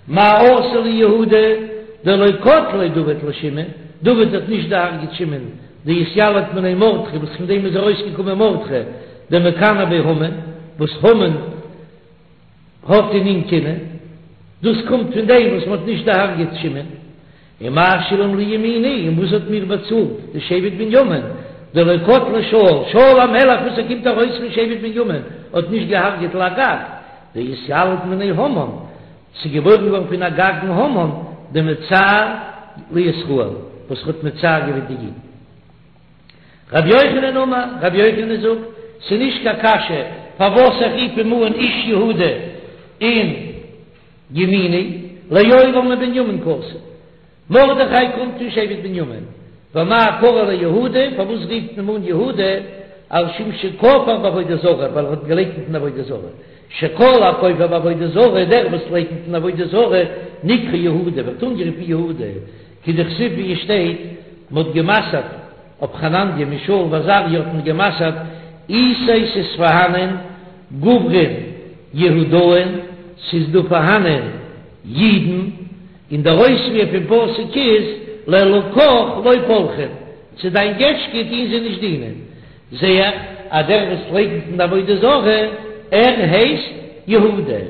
מה עשה לי יהודה, דלא קטליה דוד לשמעי, דוד האט נישט דערהרגעט שמעי'ן, דאתיליד מיניה מרדכי, וואס פון דעם איז ארויסגעקומען מרדכי, דמקנא ביה המן, וואס המן האט אין אים קנאה, דאס קומט פון דעם וואס מען האט נישט דערהרגעט שמעי'ן. ומה שילם לי ימיני, און וואס האט מיר באצאלט די שבט בנימין, דלא קטליה שאול, שאול המלך וואס ער קומט ארויס פון שבט בנימין, האט נישט געהארגעט לאגג, דאתיליד מיניה המן, ס'איז געבוירן געווארן פון אגגן המן, דמצער לישראל, וואס האט מצער געווען די אידן. רבי יוחנן אמר, רבי יוחנן זאגט, ס'איז נישט קיין קשיא פארוואס איך רוף אים אן איש יהודה און ימיני, לעולם מבנימין קאתי. מרדכי קומט פון שבט בנימין, ואמאי קרי ליה יהודה, פארוואס רופט מען אים אן יהודה, על שום שכפר בעבודה זרה, ווייל ער האט געלייקנט אין עבודה זרה, שכל הכופר בעבודה זרה, דער וואס לייקנט אין עבודה זרה, נקרא יהודה, ווערט אנגערופן יהודה, כדכתיב ווי עס שטייט, מען האט גע'מסר'ט אויף חנניה מישאל ועזריה האט מען גע'מסר'ט איתיה ס'איז פארהאנען גוברין יהודאין ס'איז דא פארהאנען אידן, און דער אויספיר פון פסוק איז לאלקיך לא פלחין, צו דיין געטשקע טוהן זיי נישט דינען, זעה איך אז דער וואס לייקנט אין די עבודה זרה ער הייסט יהודה.